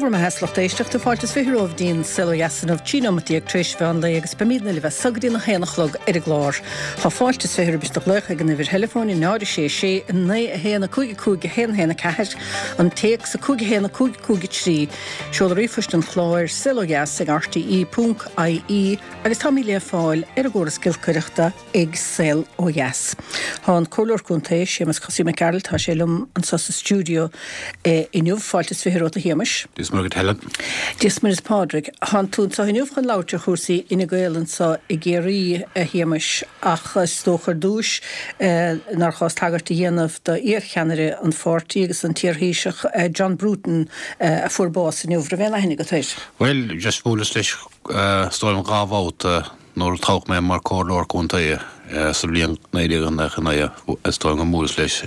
Dé bhur mbeatha a lucht éisteachta, fáilte is 20 romhaibh dtí'n Saol Ó Dheas inniu, 13 nóimeat tar éis mheán lae agus beimídne libh as so go dtí an 1 a chlog ar an gclár. Tá fáilte is 20 roimh do ghlaoch ag an uimhir theileafóin 0 6 6 9 1 5 5 1 1 4, an téacs 5 1 5 5 3, seoladh ríomhphoist an chláir, saolodheas ag rte ponc ie agus táimid le fáil ar an gcóras giolcaireachta. ag Saol Ó Dheas. Tá an Comhairleoir Contae, Séamus Cosaí Mac Gearailt, tá sé liom anseo sa stiúideo inniu. Fáilte is 20 romhat a Shéamais. Dia is Muire dhuit Helen. Dia is Muire is Pádraig. Tánn tú anseo inniu chun labhairt ar chúrsaí Fhine Gael anseo i gCiarraí, a Shéamais, ach is dócha ar dtúis nár chás tagairt a dhéanamh do iar-cheannaire an pháirtí agus an t-iar-Thaoiseach John Bruton a fuair bás inniu. Raibh aon aithne agat air? Bhuel, just bhuaileas leis is dóigh liom dhá bhabhta. Nuair a toghadh mé mar Comhairleoir Contae sa bhliain 1999 is dóigh liom gur bhuaileas leis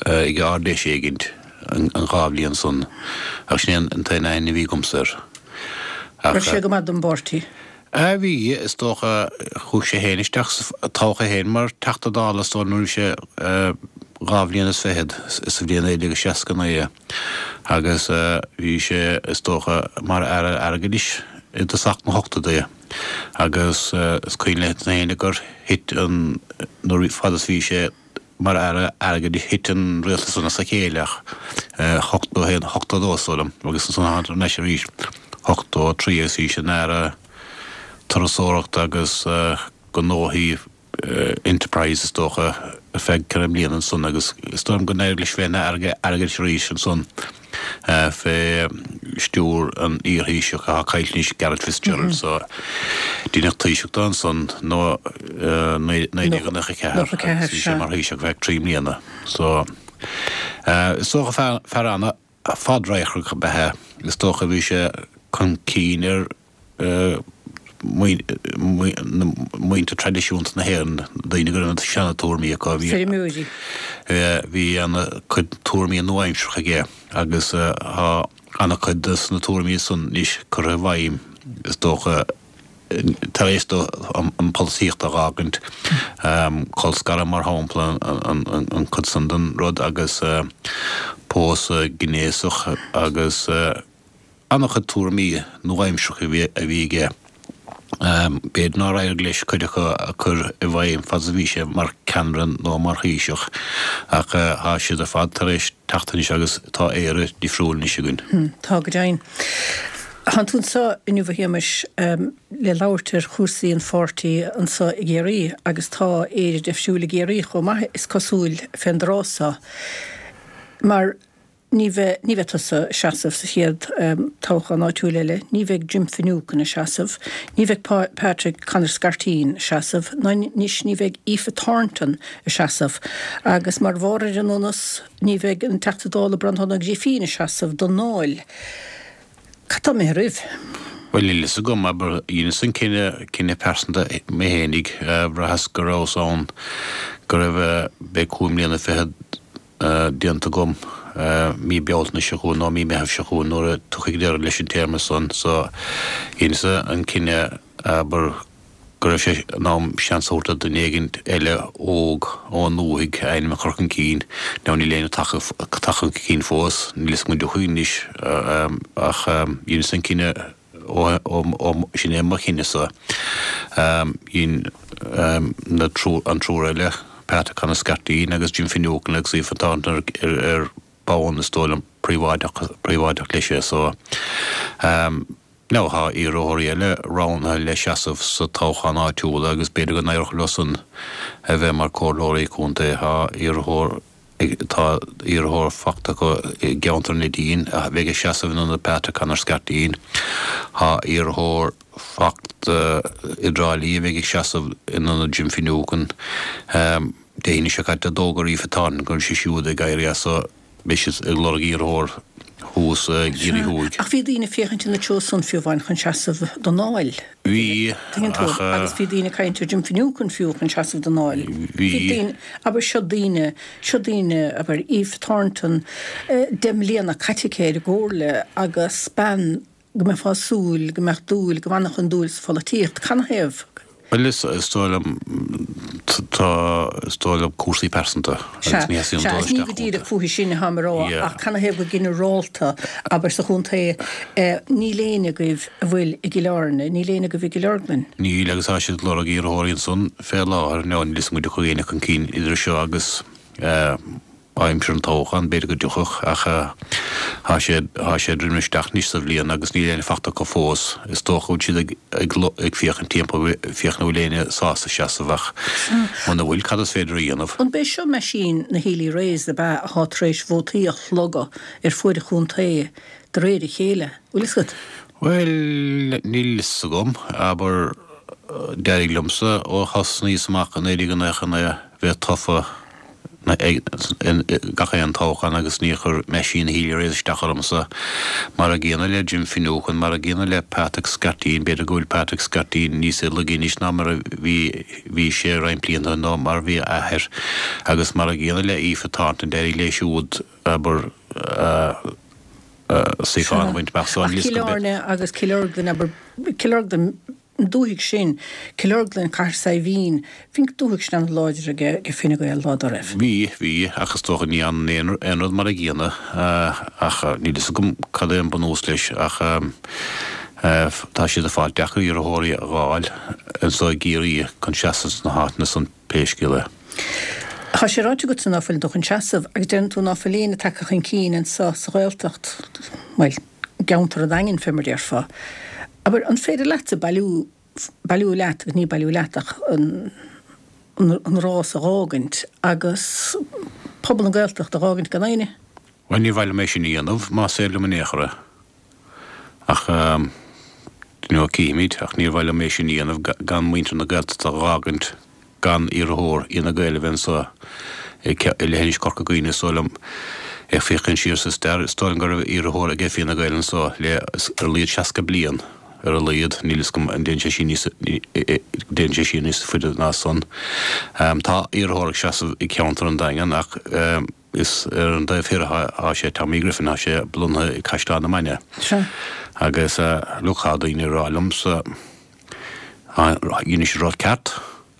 ag Ard-Fheis éigint an dhá bhliain san ach sin é an t-aon aithne a bhí agamsa air. Ach. Raibh sé go maith don bpáirtí? Bhí, is dócha. Chuaigh sé féin isteach sa, toghadh é féin mar Teachta Dála is dóigh liom nuair a bhí sé dhá bhliain is fichead sa bhliain 1969 agus bhí sé, is dócha, mar Aire Airgeadais i dtosach na hochtóidí. Agus is cuimhin le héinne gur thit an, nuair, fad is bhí sé mar Aire Airgeadais thit an rialtas san as a chéile ach 81, 82 is dóigh liom agus ansan tháinig thar n-ais arís 83 agus bhí sé ina Aire Turasóireachta agus Gnóthaí Enterprise is dócha ar feadh ceithre mbliana ansan agus is dóigh liom go n-éirigh leis bheith ina Aire Airgeadais arís ansan fé stiúir an iar-Thaoiseach atá caillte anois, Garret FitzGerald so deineadh Taoiseach dó ansan nó 1994 agus bhí sé mar Thaoiseach ar feadh trí mbliana so is dócha fear an-fhadradharcach ab ea é is dócha bhí sé chun cinn ar muintir traidisiúnta na hÉireann, daoine go raibh na seana-tuairmí acu. Feirmeoirí. Bhí ana-chuid tuairmí nua-aimseartha aige agus tá ana-chuid de na tuairmí san anois curtha i bhfeidhm, is dócha, tar éis dó an pholaitíocht a dh'fhágaint. Colscaradh, mar shampla, an chuid san den rud agus pósadh gnéasach agus. An-chuid tuairimí nua-aimseartha a bhí aige. B'fhéidir nár éirigh leis cuid acu a chur i bhfeidhm fad is a bhí sé mar cheannaire nó mar Thaoiseach, ach tá siad ar fad tar éis teacht anois agus tá Éire difriúil anois againn. Tá, go deimhin. Tánn tú anseo inniu, a Shéamais, le labhairt ar chúrsaí an pháirtí anseo i gCiarraí agus tá Éire difriúil i gCiarraí chomh maith, is cosúil, fén dtráth seo. Mar. Ní bheidh, ní bheidh tusa ag seasamh sa chéad toghchán áitiúil eile, ní bheidh Jim Finucane ag seasamh, ní bheidh Patrick Conor Scarteen ag seasamh, ná anois ní bheidh Aoife Thornton ag seasamh. Agus mar bharr ar an ndonas, ní bheidh an Teachta Dála Breandán Ó Grifín ag seasamh don nDáil. Cad tá imithe oraibh? Bhuel, níl fhios agam, abair, dheineas an cinneadh, cinneadh pearsanta mé fhéinig, bhraitheas go rabhas ann, go raibh, beidh cúig mbliana fichead, déanta agam mí Bealtaine seo chugainn nó mí Meitheamh seo chugainn nuair a tiocfaidh deireadh leis an téarma san. So, dheineas an cinneadh, abair, go raibh sé in am seans a thabhairt do dhuine éigin eile óg ón ndúthaigh a ainm a chur chun cinn. Now níl éinne tagtha chun cinn fós, níl fhios agam an dtiocfaidh anois ach dheineas an cinneadh ó sin é mo chinneadh-sa. Dhein na an triúr eile, Pat Conor Scarteen agus Jim Finucane agus Aoife Thornton ar bonn is dóigh liom príobháideach leis é so. Now tá iarrthóirí eile roghnaithe le seasamh sa toghchán áitiúil agus b'fhéidir go n-éireodh leo san a bheith mar comhairleoirí contae. Tá iarrthóir Tá iarrthóir fachta acu i gceantar Neidín a bheidh ag seasamh in ionad Patrick Conor Scarteen. Tá iarrthóir fachta i dTrá Lí a bheidh ag seasamh in ionad Jim Finucane. Dé hAoine seo caite d'fhógair Aoife Thornton go raibh sí siúd ag éirí as so beidh siad ag lorg iarrthóir thuas i gCiarraí Thuaidh. Ach bhí daoine ag féachaint ina treo san fiú amháin chun seasamh don Dáil. Bhí, Tuigeann tú, ach. Agus bhí daoine ag caint ar Jim Finucane fiú chun seasamh don Dáil. Bhí. Bhí daoine, abair, seo daoine, seo daoine, abair, Aoife Thornton, 10 mbliana caite aici ar an gComhairle agus bean go mbeifeá ag súil go mbeadh dúil, go bhfanfadh an dúil sa pholaitíocht. Canathaobh? Bhuel, is dóigh liom, tá. Tá, is dóigh liom, cúrsaí pearsanta agus ní theastaíonn dul isteach. Sea, ní go díreach fúithi sin atáim a rá ach canathaobh go ginearálta, abair sa chontae, níl éinne agaibh a bhfuil i gCill Airne, níl éinne agaibh i gCill Orglan. Níl, agus tá siad ag lorg iarrthóirí ansan fé láthair. Now, níl 'fhios agam an dtiocfaidh éinne chun cinn idir seo agus. Aimsir an toghcháin, b'fhéidir go dtiocfadh, ach tá sé, tá sé ag druidim isteach anois sa bhliain agus níl éinne fachta acu fós. Is dócha go bhfuil siad ag, ag, ag féachaint timpeall, féachaint an bhfuil éinne sásta seasamh ach muna bhfuil, cad is féidir a dhéanamh? An b'é seo meaisín na Healy-Raes ab ea atá tar éis vótaí a shlogadh ar fuaid an chontae de réir a chéile, bhfuil fhios agat? Bhuel, níl fhios agam, abair, d'éirigh liomsa ó thosnaíos amach i 1999 bheith tofa, gach aon toghchán agus níor chuir meaisín Healy-Raes isteach ormsa. Mar a gcéanna le Jim Finucane, mar a gcéanna le Patrick Scarteen, b'fhéidir go bhfuil Patrick Scarteen níos laige anois ná mar a bhí bhí sé roinnt blianta nó mar a bhí a athair, agus mar a gcéanna le Aoife Thornton, d'éirigh léi siúd, abair, suíochán a bhaint amach so. Ach Cill Airne agus Cill Orglan, abair, Cill Orglan, An dúthaigh sin, Cill Orglan, Cathair Saidhbhín, bhí an dúthaigh sin an-láidir ag Fine Gael lá dá raibh. Bhí, bhí, ach is dócha ní fhanann aon rud mar a gcéanna, ach níl fhios agam cad é an bunús leis, ach tá siad ag fáil deacair iarrthóirí a dh'fháil anso i gCiarraí chun seasamh sna háiteanna san pé scéal é. Tá sé ráite agatsa ná fuileann tú chun seasamh agus deireann tú ná fuil éinne tagtha chun cinn anso sa Ghaeltacht, bhuel, i gceantar an Daingin fé mar déarfá. Abair, an féidir leatsa bailiú, bailiú leat, agus ní bailiú leat ach an, an rás a dh'fhágaint agus pobal na Gaeltachta a dh'fhágaint gan éinne? Bhuel, ní mhaith liom é sin a dhéanamh, más féidir liom in aon chor é. Ach, you know, cífimid, ach níor mhaith liom é sin a dhéanamh gan muintir na Gaeltachta a dh'fhágaint gan iarrthóir Fhine Gael a bheith anso i leithinis Chorca Dhuibhne, is dóigh liom. Ag féachaint siar sa stair, is dóigh liom go raibh iarrthóir ag Fianna Gael anso le ar a laghad 60 bliain, ar a laghad, níl fhios agam an dtéann sé siar níos, dtéann sé siar níos faide ná san. Tá iarrthóir ag seasamh i gceantar an Daingean ach is ar an dtaobh thoir atá sé, Tommy Griffin, tá sé lonnaithe i gCaisleán na Mainge. Agus look, tá daoine ag rá liomsa, Dhein siad rud ceart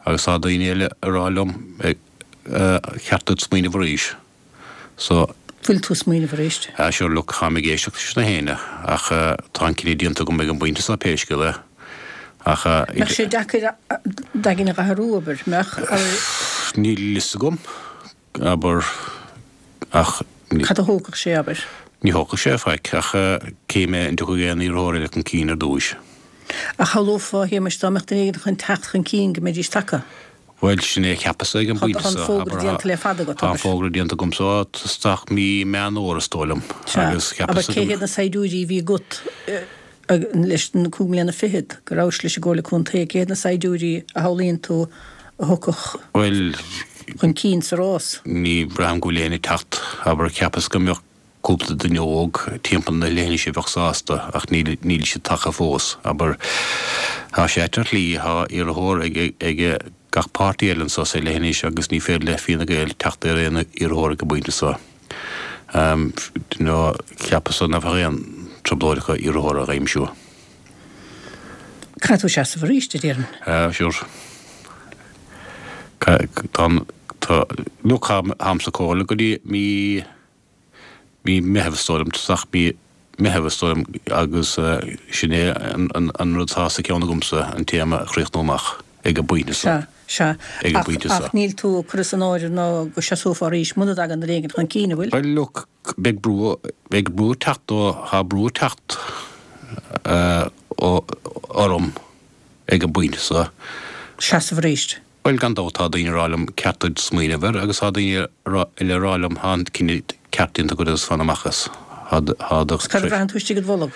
agus tá daoine eile ag rá liom cheart duit smaoineamh arís. So. Bhfuil tú ag smaoineamh arís? Ah sure look, táim ag éisteacht leis na héinne ach tá an cinneadh déanta agam ag an bpointe seo pé scéal é. Ach. Mbeadh sé deacair d'aigne a athrú, abair, mbeadh? Níl fhios agam. abair, ach. Cad a thógfadh sé, abair? Ní thógfadh sé faic, ach cífidh mé an dtiocfaidh aon iarrthóir eile chun cinn ar dtúis. Ach shamhlófá, a Shéamais, dá mbeadh duine éigin chun teacht chun cinn go mbeidís tagtha. Bhuel, sin é a cheapas-sa ag an bpointe seo. Tá an fógra déanta le fada agat, abair. Tá an fógra déanta agamsa ó isteach mí Meán Fhómhair, is dóigh liom. Sea, abair, cé hiad na saighdiúirí a bhí agat? Leis na cúig mbliana fichead go rabhais leis an gComhairle Contae, cé hiad na saighdiúirí a shamhlaíonn tú a thiocfadh chun cinn sa rás? Ní bhraithim go bhfuil éinne ag teacht. Abair, cheapas go mbeadh cúpla duine óg timpeall na leithinise a bheadh sásta ach níl níl siad tagtha fós. Abair, tá sé ait ar shlí, tá iarrthóir ag ag gach páirtí eile anso sa leithinis agus ní féidir le Fianna Gael teacht ar aon iarrthóir ag an bpointe seo. Nó cheapas-sa nach bheadh aon trioblóid acu iarrthóir a aimsiú. Caithfidh tú seasamh arís, a déarfainn. Sure. Tá an, tá, look, táim sa chomhairle go dtí mí, mí Meitheamh is dóigh liom, tosach mí Meitheamh is dóigh liom agus sin é an rud atá sa cheann agamsa, an téarma a chríochnú amach. ag an bpointe seo. Sea, sea. Ag an bpointe seo. Ach níl tú ag cur as an áireamh ná go seasófá arís muna dtagann duine éigin chun cinn, an bhfuil? Bhuel, look, beidh brú, beidh brú ag teacht ó, tá brú ag teacht ó, orm ag an bpointe seo. Seasamh arís. Bhuel, gan dabht, tá daoine ag rá liom ceart duit smaoineamh air agus tá daoine eile ag rá liom tá an cinneadh ceart déanta agat agus fan amach as. Tá, tá do. Cad a bhraitheann tú istigh id bholg?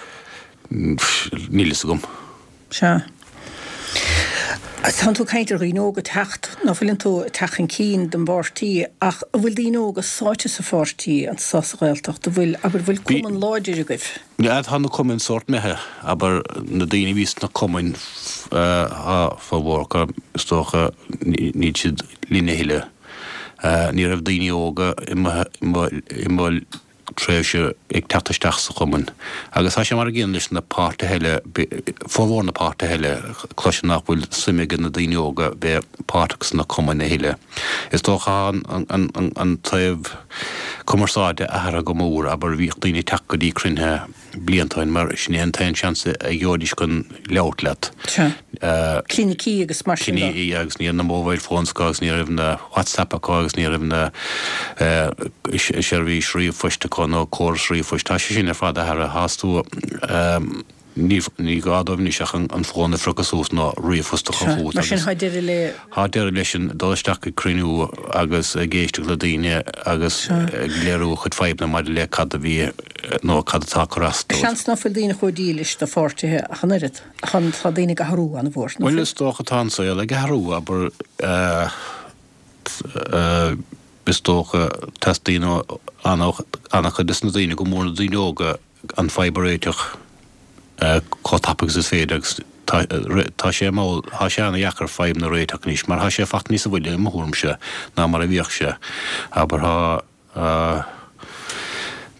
Níl fhios agam. Sea. Tánn tú ag caint ar dhaoine óga ag teacht, ná fuileann tú ag teacht chun cinn don bpáirtí, ach an bhfuil daoine óga sáite sa pháirtí anso sa Ghaeltacht, an bhfuil, abair, an bhfuil cumann láidir agaibh? Yeah, tá na cumainn sórt imithe, abair, na daoine a bhí sna cumainn, tá formhór acu, is dócha, níl siad linn a thuilleadh. Ní raibh daoine óga i mo, i mo, i mo. tréimhse ag teacht isteach sa chumann. Agus tá sé mar an gcéanna leis na páirtithe eile, formhór na páirtithe eile, cloisim nach bhfuil suim ag na daoine óga bheith páirteach sna cumainn a thuilleadh. Is dócha tá an taobh cumarsáide athraithe go mór, abair bhíodh daoine ag teacht go dtí cruinnithe blianta ó shin mar sin é an t-aon seans a gheobhaidís chun labhairt leat. Sea. Clinicí agus mar sin de. Clinicí agus ní raibh na mobile phones acu agus ní raibh na WhatsApp acu agus ní raibh na seirbhís ríomhphoist acu nó córas ríomhphoist. Tá sé sin ar fad athraithe. Tá tú. Ní gá dóibh anois ach an fón a phriocadh suas nó ríomhphost a chur chugat Mar sin, tá deireadh le. Tá deireadh leis an dul isteach ag cruinniú agus ag éisteacht le daoine agus ag léiriú a chuid fadhbanna maidir le cad a bhí nó cad atá ag cur as dóibh. Seans ná fuil daoine chomh dílis do pháirtithe ach an oiread. Tá daoine ag athrú an-mhór, ná fuil? Bhuel, is dócha tá an saol ag athrú, abair. Is dócha teastaíonn ó an-chuid des na daoine, go mór na daoine óga, an fadhb a réiteach chomh tapa agus is féidir agus tá sé mall, tá sé ana-dheacair fadhbanna a réiteach anois mar tá sé fachta níosa mhoille i mo thuairimse ná mar a bhíodh sé. Abair tá,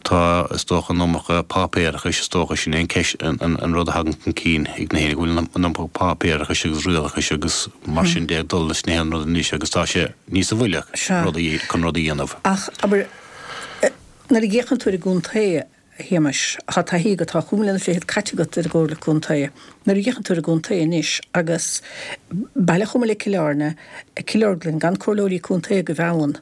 tá is dócha an iomarca páipéarachais is dócha sin é an ceist, an rud a thagann chun cinn ag na héinne go bhfuil an iomarca páipéarachais agus rialachais agus mar sin de ag dul leis na haon rud anois agus tá sé níosa mhoille chun rud a dhéanamh. Ach abair nuair a fhéachann tú ar an gcontae, A Shéamais, tá taithí agat, tá chúig mbliana fichead caite agat ar an gComhairle Contae. Nuair a fhéachann tú ar an gcontae anois agus baile chomh maith le Cill Airne, Cill Orglan, gan comhairleoirí contae agaibh ann,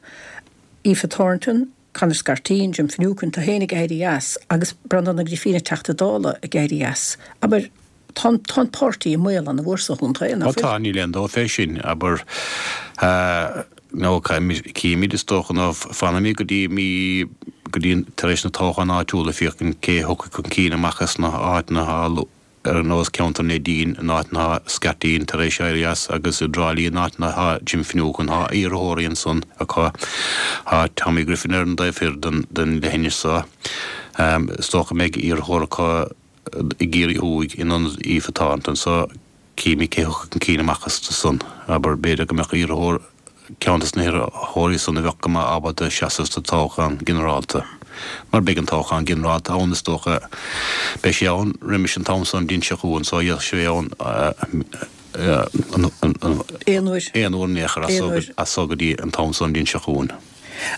Aoife Thornton, Conor Scarteen, Jim Finucane, tú féin ag éirí as agus Breandán Ó Grifín an Teachta Dála ag éirí as. Abair, Tá an, tá an páirtí i mbaol an-mhór sa chontae, nach bhfuil? Ó tá, níl aon dabht fé sin, abair, nó cífimid is dócha, nó fanfaimid go dtí mí, go dtí tar éis na toghcháin áitiúla féachaint cé a thiocfaidh chun cinn amach as na háiteanna atá ar nós ceantar Neidín, in áit atá Scarteen tar éis éirí as, agus i dTrá Lí in áit atá Jim Finucane, tá iarrthóirí ansan acu, tá Tommy Griffin ar an dtaobh thoir den, den leithinis so, is dócha go mbeidh iarrthóir acu. i gCiarraí Thuaidh in ionad Aoife Thornton so cífimid cé thiocfaidh chun cinn amach astu san. Abair, b'fhéidir go mbeadh iarrthóir, ceann des na hiarrthóirí san a bheadh go maith ábalta seasamh sa toghchán ginearálta. Mar beidh an toghchán ginearálta ann is dócha, beidh sé ann roimis an t-am so an bhliain seo chugainn so d'fhéadfadh sé bheith ann aon uair. Aon uair in aon chor as so go dtí an t-am so an bhliain seo chugainn.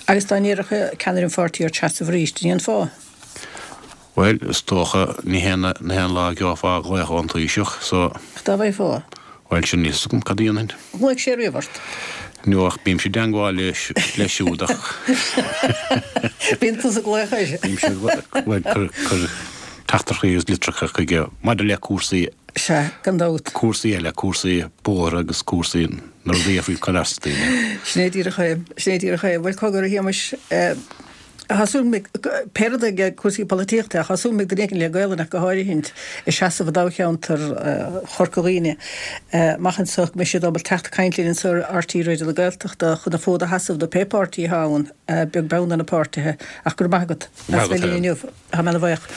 Agus dá n-iarrfadh ceannaire an pháirtí ort seasamh arís, an ndéanfá? Bhuel, is dócha, ní haon, ní haon lá a gheofá glaoch ón Taoiseach, so. Ach dá bhfaighfeá? Bhuel, sin, níl 'fhios agam cad a dhéanfainn. Ghlaoigh sé riamh ort? No, ach bímse i dteangmháil leis, leis siúd ach. Bíonn tusa ag glaoch air. Bímse ag glaoch, bhuel, cur, cur teachtaireachtaí agus litreacha chuige maidir le cúrsaí. Sea, gan dabht. Cúrsaí eile, cúrsaí bóithre agus cúrsaí na rudaí a faoi cur as daoine. Sin é díreach é, sin é díreach é. Bhuel, cogar, a Shéamais, Tá súil agam, pé rud é cúrsaí polaitíochta, tá súil agam go mbeidh duine éigin le Gaolainn ach go háirithint ag seasamh i dtoghcheantar Chorca Dhuibhne amach anseo go mbeidh siad ábalta teacht ag caint linn anseo ar RTÉ Raidió na Gaeltachta chun an fód a sheasamh do pé páirtí atá ann, beag beann ar na páirtithe. Ach go raibh maith agat as bheith linn inniu. Tá mé ana-bhuíoch.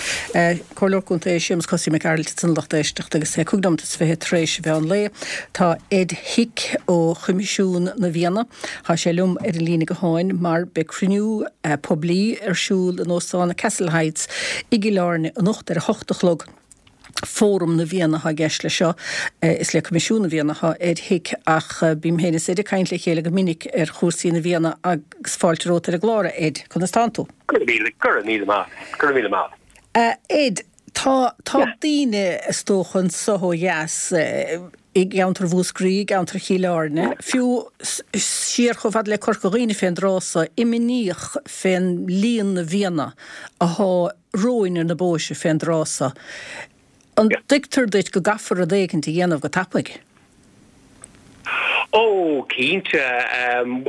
Comhairleoir Contae Séamus Cosaí Mac Gearailt ansan a lucht éisteachta agus é 25 nóimeat tar éis an mheán lae. Tá Ed Hick ó Choimisiún na bhFianna, tá sé liom ar an líne gutháin mar beidh cruinniú poiblí ar siúl in Óstán Castle Heights i gCill Airne anocht ar a hocht a chlog. Fóram na bhFianna atá i gceist leis seo. Is le Coimisiún na bhFianna atá Ed Hick ach bím féin is Ed ag caint le chéile go minic ar chúrsaí na bhFianna agus fáilte romhat ar an gclár, a Ed. Conas tánn tú? Go raibh míle, go raibh míle maith, go raibh míle maith. A Ed, tá, tá daoine, is dócha, anso ó dheas, i gceantar Mhúscraí, i gceantar Chill Airne, fiú siar chomh fada le Corca Dhuibhne fén dtráth so, imníoch fén líon na bhfianna athá romhainn ar na bóithre fén dtráth so. An dtuigtear duit go gcaithfear rud éigint a dhéanamh go tapaidh? Ó, cinnte.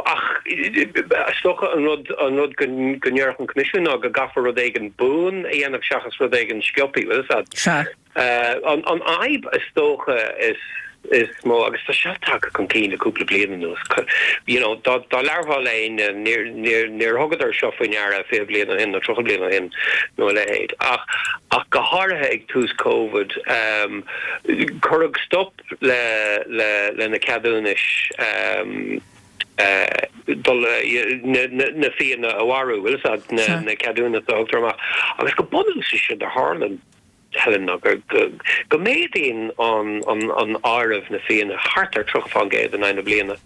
Ach is dócha an rud, an rud go ndéarfadh an Coimisiún ná go gcaithfear rud éigin buan a dhéanamh seachas rud éigin sciobtha, bhfuil fhios a'd. Sea. An fhadhb is dócha is is mó, agus tá seo tagtha chun cinn le cúpla bliain anuas, you know, dá labharfá le éinne, níor, níor, níor thugadar seo faoi ndeara 20 bliain ó shin nó 30 bliain ó shin nó a leithéid. Ach, ach go háirithe ag tús Covid, cuireadh stop le, le, le na ceadúnais. dul na fianna a mharú, bhfuil fhios a'd, na ceadúnais a thugtar amach. Agus go bunúsach séard a tharlaíonn, Helen, ná go méadaíonn an áireamh na fianna thart ar 30% in aghaidh na bliana.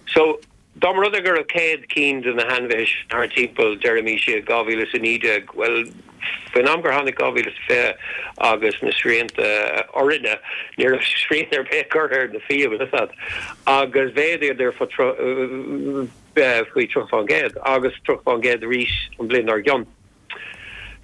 So, dá mba rud é go raibh 100 cinn de na hainmhithe sin thart timpeall, deirimís, i 2019, bhuel, faoin am gur tháinig 2020 agus na srianta orainne, ní raibh srian ar bith curtha ar na fia, bhfuil fhios a'd, agus mhéadaíodar faoi 30% agus 30% arís an bhliain dár gcionn.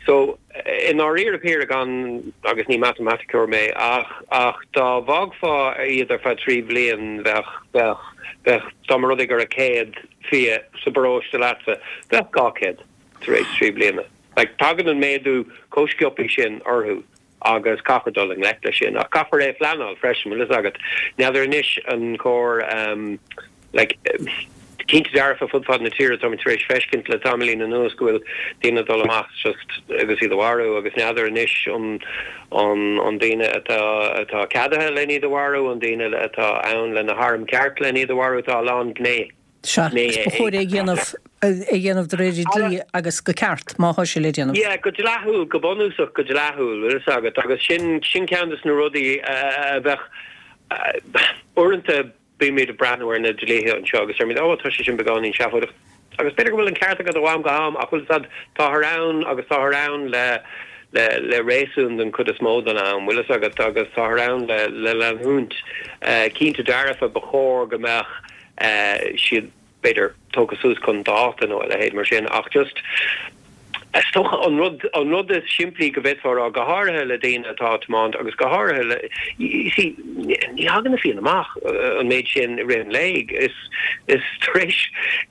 So, i ndáiríre píre gan, agus ní matamaiticeoir mé, ach, ach dá bhfágfá iad ar feadh 3 bhliain bheadh, bheadh, bheadh, dá mba rud é go raibh 100 fia sa bparóiste leatsa, bheadh 200 tar éis 3 bliana. Like, tagann an méadú chomh sciobthaí sin orthu agus caithfear dul i ngleic leis sin. Ach caithfear é a phleanáil freisin, bhfuil fhios agat. N'fheadar anois an cóir, like, cinnte dearfa fud fad na tíre táimid tar éis feiscint le tamaillín anuas go bhfuil daoine ag dul amach just agus iad a mharú agus n'fheadar anois an an an daoine atá atá ceadaithe len iad a mharú, an daoine atá ann le na hairm ceart len iad a mharú, tá a lán gné. Sea, agus ba chóir é a dhéanamh, é a dhéanamh de réir an dlí agus go ceart, má thá sé le déanamh. Yeah, go dleathúil, go bunúsach go dleathúil, bhfuil fhios agat, agus sin, sin ceann des na rudaí a bheadh, uaireanta bímid ag breathnú ar na dlíthe anseo agus deirimid, oh, tá sé sin beagáinín seafóideach, agus b'fhéidir go bhfuil an ceart agat ó am go ham ach bhfuil fhios agat, táthar ann agus táthar ann le, le, le réasún den chuid is mó den am, bhfuil fhios agat, agus táthar ann le, le leanúint. Cinnte dearfa, ba chóir go mbeadh siad, b'fhéidir, tógtha suas chun dáta nó a leithéid mar sin, ach just, is dócha, an rud, an rud is simplí go bhféadfá a rá, go háirithe le daoine atá ag tiomáint agus go háirithe le, you see, ní thagann na fianna amach an méid sin i rith an lae, is, is tar éis,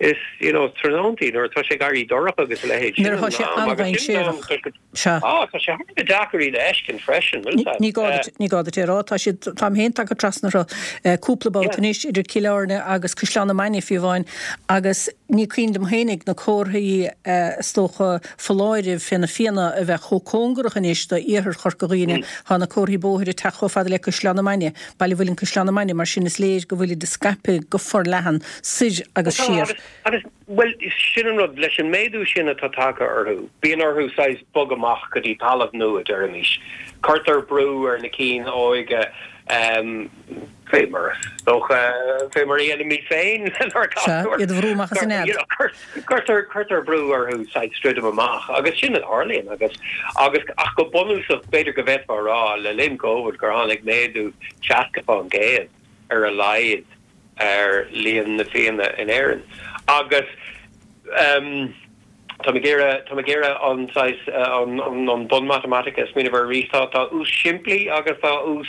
is, you know, tráthnóntaí nuair atá sé ag éirí dorcha agus a leithéid, sin an am agus sin an am, tá sé. Sea. Á, tá sé thar a bheith deacair iad a fheiscint freisin, bhfuil fhios a'd. Ní gá duit, ní gá duit é a rá. Tá siad, táim féin tagtha trasna orthu cúpla babhta anois, idir Cill Airne agus Caisleán na Mainge fiú amháin, agus ní cuimhin liom féinig na comharthaí is dócha foláirimh fé na fianna a bheith chomh cóngarach anois do iarthar Chorca Dhuibhne. Tá na comharthaí bóthair ag teacht chomh fada le Caisleán na Mainge, Baile Mhuilinn Caisleán na Mainge, mar sin is léir go bhfuilid ag scaipeadh go forleathan soir agus siar. Agus, bhuel, sin an rud, leis an méadú sin atá tagtha orthu, bíonn orthu saghas bogadh amach go dtí talamh nua, deirimis. Cuirtear brú ar na cinn óige, fé mar is dócha, fé mar a dhéanaimid féin lenár Sea, gasúir. iad a bhrú amach as an nead. Cuirtear, cuirtear brú orthu saghas druidim amach, agus sin a tharlaíonn, agus, agus, ach go bunúsach, b'fhéidir go bhféadfá a rá, le linn Covid, gur tháinig méadú 60% ar a laghad ar líon na bhfianna in Éirinn agus táim ag iarraidh, táim ag iarraidh an saghas, an bun matamaitice a smaoineamh air arís. Tá, tá ús simplí agus tá ús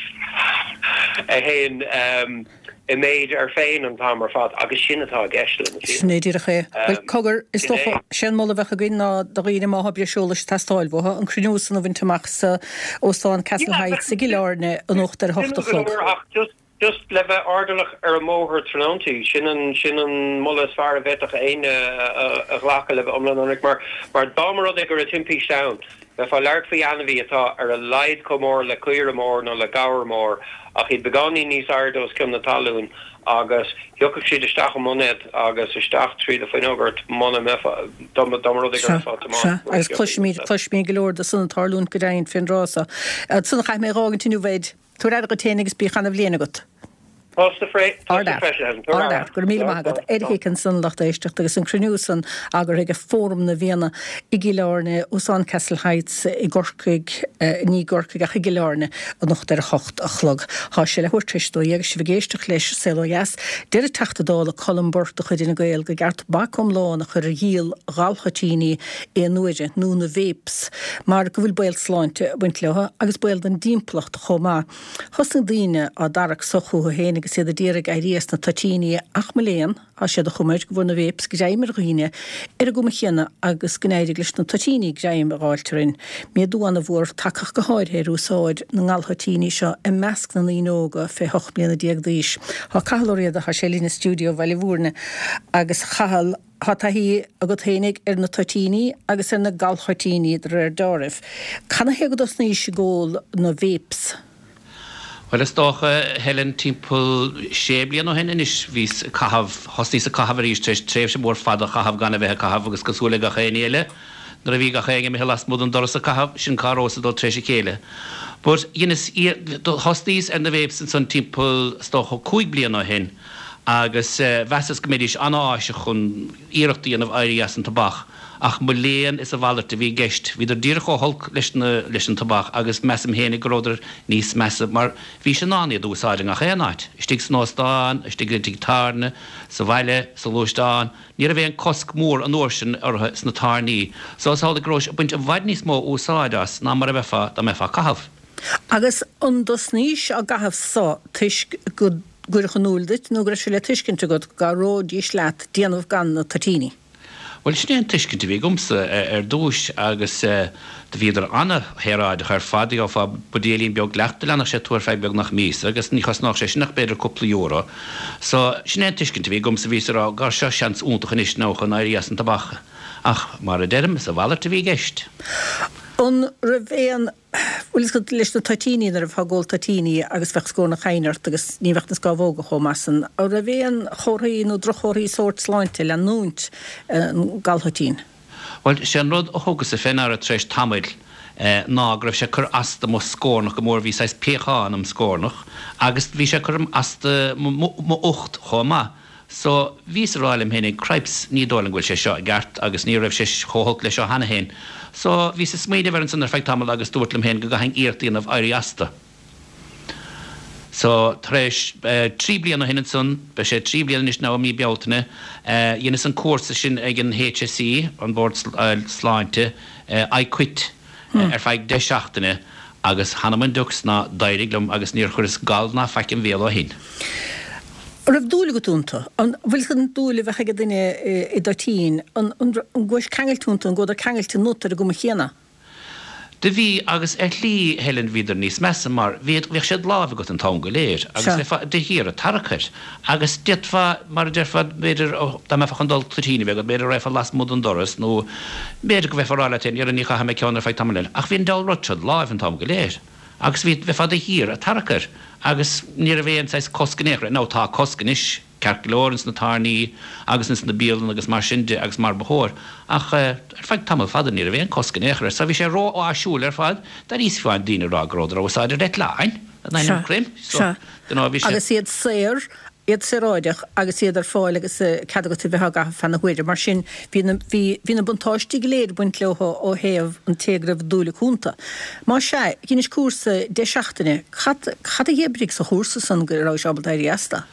a théann i méid air féin an t-am ar fad agus sin atá i gceist le na fianna. Sin é díreach é. Bhuel, cogar, is dócha, sé an moladh a bheadh againn ná do dhaoine má thá breis eolais ag teastáil uathu, an cruinniú san a bhaint amach sa Óstán Castle Heights i gCill Airne anocht ar a hocht a chlog. Just le bheith airdeallach ar an mbóthar tráthnóntaí, sin an, sin an moladh is fearr a bhféadfadh éinne a ghlacadh le bheith iomlán ionraic, mar, mar dá mba rud é go raibh timpiste ann, bheifeá ag labhairt faoi ainmhí atá ar a laghad chomh mór le caora mór nó le gabhar mór, ach iad beagáinín níos airde os cionn na talún, agus thiocfadh siad isteach i mboinéad agus isteach trí do fuinneog ort muna mbeifeá, dá mba, dá mba rud é go Sea, raibh sea, tiomáint agus cloisimid, cloisimid go leor de san ag tarlúint go deimhin fén dtráth so. Ansan caithfidh mé a dh'fhágaint inniu, Ed. Tabhair aire dhuit féin agus bíodh ana-bhliain agat. Tusa freisin. Tabhair aire. Go raibh míle maith agat. Ed Hick ansan, lucht éisteachta, agus an cruinniú san eagraithe ag Fóram na bhFianna i gCill Airne, Óstán Castle Heights i gCorcaigh, ní i gCorcaigh ach i gCill Airne, anocht ar a hocht a chlog. Tá sé leathuair tar éis a 12 agus sibh ag éisteacht leis Saol Ó Dheas. Deir an Teachta Dála Colm Burke de chuid Fhine Gael gur ceart bac iomlán a chur ar dhíol ghal-thoitíní aon uaire, nó na vapes, mar go bhfuil baol sláinte ag baint leo agus baol don dtimpeallacht chomh maith. Thosnaigh daoine á dtarrac so chucu féin agus iad a d'iarraidh éirí as na toitíní ach mo léan, tá sé de chuma air go bhfuair na vapes greim ar dhaoine ar an gcuma chéanna agus go n-éirigh leis na toitíní greim a dh'fháilt orainn. Méadú ana-mhór tagtha go háirithe ar úsáid na ngalthoitíní seo i measc na ndaoine óga fé hocht mbliana déag d'aois. Tá Cathal Ó Riada, tá sé linn i stiúideo Bhaile Mhúirne agus a Chathail, Tá taithí agat fhéinig ar na toitíní agus ar na galthoitíní de réir deáraimh. Canathaobh go dtosnaís ag ól na vapes? Bhuel, is dócha, Helen, timpeall sé bliana ó shin anois, bhíos ag caitheamh, thosnaíos ag caitheamh arís tar éis tréimhse mhór fada a chaitheamh gan a bheith ag caitheamh agus cosúil le gach éinne eile, nuair a bhí gach éinne imithe lasmuigh den doras ag caitheamh, sin cá rabhas ag dul tar éis a chéile. But dheineas, thosnaíos ar na vapes ansan timpeall, is dócha, 5 bliana ó shin agus mheasas go mbeidís an-áiseach chun iarracht a dhéanamh éirí as an tobac. Ach mo léan is a mhalairt a bhí i gceist. Bhíodar díreach chomh holc leis na, leis an tobac agus measaim fhéinig go rabhadar níos measa mar bhís in ann iad a úsáid i ngach aon áit, istigh san óstán, istigh i dtigh tábhairne, sa bhaile, sa ghluaisteán. Ní raibh aon cosc mór an uair sin orthu sna tábhairní so is amhlaidh go rabhais ag baint i bhfad níos mó úsáid as ná mar a bheifeá dá mbeifeá ag caitheamh. Agus an dtosnaís á gcaitheamh so toisc go gcuireadh in iúl duit nó go raibh sé le tuiscint agat go gcabhróidís leat déanamh gan na toitíní? Bhuel, sin é an tuiscint a bhí agamsa ar dtúis agus do bhíodar ana-shaoráideach ar fad. Gheofá buidéilín beag leacht a leanfadh sé tú ar feadh beagnach míosa agus ní chosnódh sé sin ach b'fhéidir cúpla euro. So, sin é an tuiscint a bhí agamsa, bhíos ag rá, gar seo seans iontach anois now chun éirí as an tobac. Ach, mar a deirim, is a mhalairt a bhí i gceist. An raibh aon Bhfuil fhios agat, leis na toitíní, nuair a bheifeá ag ól toitíní agus bheadh scornach chaoin ort agus ní bheadh na scámhóga chomh maith san, an raibh aon chomharthaí nó droch-chomharthaí sóirt sláinte leanúint an gallthoitín? Bhuel, sé an rud a thugas-sa fé ndeara tar éis tamaill ná go raibh sé ag cur as do mo scornach go mór, bhí saghas piachán im scornach agus bhí sé ag cur as do m'ucht chomh maith. So, bhíos a rá liom fhéinig, cripes, ní dóigh liom go bhfuil sé seo i gceart agus ní raibh sé chomh holc leis seo cheana fhéin. So, bhíos ag smaoineamh air ansan ar feadh tamaill agus dúrt liom fhéin go gcaithfinn iarracht a dhéanamh éirí astu. So, tar éis 3 bliana ó shin ansan, beidh sé 3 bliana anois now i mí Bealtaine, dheineas an cúrsa sin ag an HSE, an Bord Sláinte, I Quit. ar feadh 10 seachtaine agus th'anam 'on diucs ná d'éirigh liom agus níor chuireas gal ná faic im bhéal ó shin. An raibh dúil agat iontu? An bhfuil an dúil a bheadh ag duine i dtoitín, an gcuais ceangailte iontu, an gcuadar ceangailte ionat ar an gcuma chéanna? Do bhí, agus ar shlí, Helen, bhíodar níos measa mar bhíod, bhíodh sé id láimh agat an t-am go léir agus bheifeá de shíor ag tarrac air agus d'fhéadfá, mar a déarfá, b'fhéidir, dá mbeifeá chun dul toitín a bheith agat, b'fhéidir go raghfá lasmuigh den doras nó B'fhéidir go mbeifeá ag rá leat féin, 'Dhera, ní chaithfidh mé ceann ar feadh tamaill eile. Ach bhí an diabhal rud seo id láimh an t-am go léir. Agus bhí, bheifeá de shíor ag tarrac air. Agus ní raibh aon saghas cosc in aon chor air. Now tá cosc anois, ceart go leor, ins na tábhairní agus ins na bialanna agus mar sin de agus mar ba chóir. Ach ar feadh tamall fada ní raibh aon cosc in aon chor air. So bhí sé ró-áisiúil ar fad. D'airíos fiú amháin daoine ag rá go rabhadar á úsáid ar eitleáin! In ainm Chroim. So, dunno, bhí sé. Agus iad saor iad saoráideach agus iad ar fáil agus cead agat a bheith á gcaitheamh feadh na huaire. Mar sin, bhí na, bhí, bhí na buntáistí go léir ag baint leo ó thaobh an té go raibh dúil acu iontu. Má sea, dheinis cúrsa 10 seachtaine, cad, cad a dh'oibrigh sa chúrsa san go rabhais ábalta éirí astu?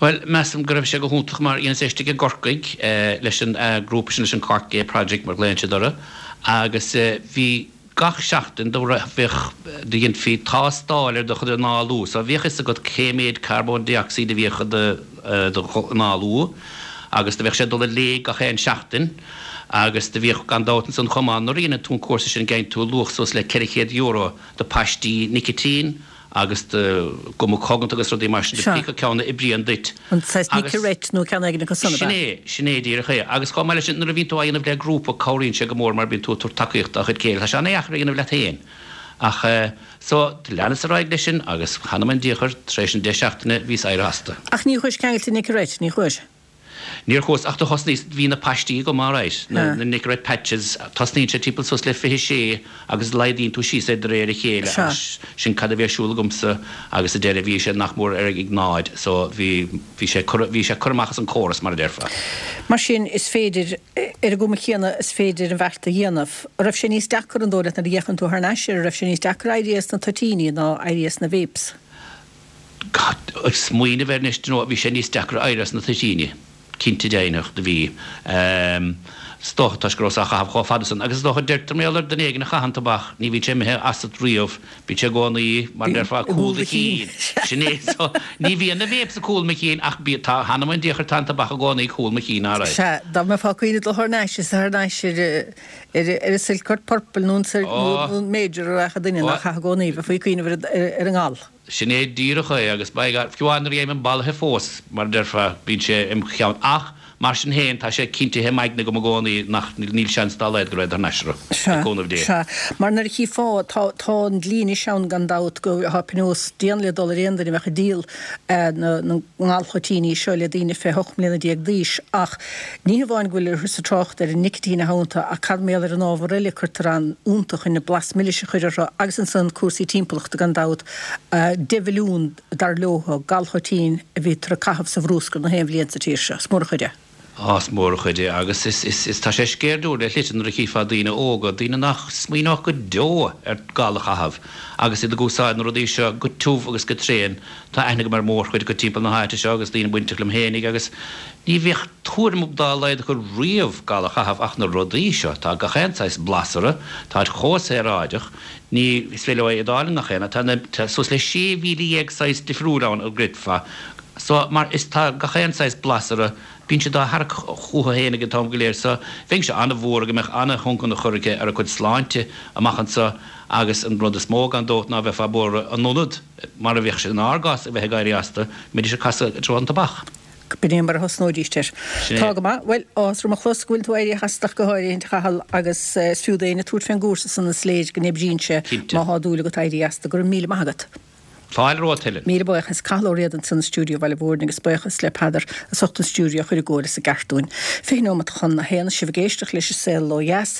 Bhuel, measaim go raibh sé go hiontach mar dheineas é istigh i gCorcaigh leis an grúpa sin, leis an Cork Gay Project mar ghlaonn siad orthu agus bhí, Gach seachtain do bheadh, do dheinfí tástáil ar do chuid análú so bhíodh fhios agat cé méid carbón dé-ocsaíd a bhíodh i do análú agus do bheadh sé ag dul i léig gach aon seachtain agus do bhíodh gan dabht ansan chomh maith nuair a dheineann tú an cúrsa sin geibheann tú luach suas le €400 de paistí nicitín agus de ghuma coganta agus rudaí mar sin de pé acu ceann a oibríonn duit. An saghas Agus. Nicorette nó ceann éigin acu san, ab Sin ea? é, sin é díreach é. Agus chomh maith leis sin, nuair a bhíonn tú á dhéanamh le grúpa, cabhraíonn sé go mór mar bíonn tú ag tabhairt tacaíocht dá chuid céile. Tá sé an-dheacair a dhéanamh leat féin. Ach eh, so, do leanas ar aghaidh leis sin agus th'anam 'on diachar, tar éis an 10 seachtaine, bhíos éirithe astu. Ach ní chuais ceangailte Nicorette, ní chuais? Níor chuas, ach do thosnaíos, bhí na paistí agam alright, na Nicorette patches, tosnaíonn sé timpeall suas le 26 agus laghdaíonn tú síos é de réir a chéile agus sin cad a bhí ar siúl agamsa agus sa deireadh bhí sé nach mór ar ag náid so bhí, bhí sé curtha, bhí sé curtha amach as an córas mar a déarfá. Mar sin is féidir, ar an gcuma chéanna is féidir an bheart a dhéanamh. An raibh sé níos deacra an dóigh leat nuair a fhéachann tú thar n-ais air, an raibh sé níos deacra éirí as na toitíní ná éirí as na vapes? Ag smaoineamh air anois, do you know, bhí sé níos deacra éirí as na toitíní, cinnte deimhneach, do bhí. Is dócha toisc go rabhas á chaitheamh chomh fada san. Agus is dócha, deirtear mar gheall ar duine éigin a chaitheann tobac, ní bhíonn sé imithe asat riamh, bíonn sé i gcónaí, mar a déarfá, ag cúl do chinn. Sin é. So, ní bhíonn na vapes ag cúl mo chinn ach bí, tá, th'anam 'on diachar, tá an tobac i gcónaí ag cúl mo chinn, alright. Sea, dá mbeifeá ag cuimhneamh dul thar n-ais, is thar n-ais ar, ar an Silcourt Purple nó an Major a rachadh duine nach chaith i gcónaí, bheifí ag cuimhneamh ar an ngal. Sin é díreach é, agus by God, fiú amháin nuair a gheibhim bolaithe fós, mar a déarfá, bíonn sé im cheann. Ach, Mar sin féin, tá sé cinntithe im aigne agam i gcónaí nach, níl seans dá laghad go raghad thar n-ais orthu, le cúnamh Dé. Sea, mar nuair a chífeá, tá, tá an dlí anois ann gan dabht go, tá pionós dian le dul ar aon duine a bheadh ag díol na, na ngalthoitíní seo le daoine fé 18 mbliana d'aois ach ní hamháin go bhfuil ag trácht ar an nicitín atá iontu ach cad mar gheall ar an ábhar eile a cuirtear ann iontu chun an blas milis a chur orthu agus ansan cúrsaí timpeallachta gan dabht, 10 mhilliún dar leo, galthoitín a bhítear ag caitheamh sa bhrúscar na haon bhliain sa tír seo. Is mór an chuid é. Á, is mór an chuid é agus is, is, is, tá sé sceirdiúil le shlite nuair a chífeá daoine óga, daoine nach smaoineodh go deo ar gal a chaitheamh agus iad ag úsáid na rudaí seo go tiubh agus go tréan. Tá aithne agam ar mhórchuid acu timpeall na háite seo agus daoine bainteach liom fhéinig agus ní bheadh tuairim dá laghad acu riamh gal a chaitheamh ach na rudaí seo, tá gach aon saghas blas orthu, táid chomh saoráideach, Ní is féidir leo é a fháil i ngach aon áit. Tá na, tá suas le 16,000 saghas difriúil ann a gcreidfeá. So, mar is tá gach aon saghas blas orthu, bíonn siad á tharrac chucu féin ag an t-am go léir. So, bheinnse an-bhuartha go mbeadh an-thionchar aici ar a cuid sláinte amach anseo agus an rud is mó gan dabht ná bheifeá buartha in ionad, mar a bheadh sé inár gcás, a bheith ag éirí astu, go mbeidís ag casadh i dtreo an tobac. B'in é mar a thosnóidíst air. Sin é. Tá go maith. Bhuel, áthas orm a chlos go bhfuil tú éirithe as ach go háirithe, a Chathail, agus is fiú d'éinne tabhairt fén gcúrsa san is léir go n-oibríonn sé Cinnte. má thá dúil agat éirí as. Go raibh míle maith agat. Fáilte romhat, Helen. Míle buíochas. Cathal Ó Riada ansan i stiúideo Bhaile Mhúirne agus buíochas le Peadar as ucht an stiúideo a chur i gcóir is i gceart dúinn. 20 nóimeat chun a haon, sibh ag éisteacht leis An Saol Ó Dheas.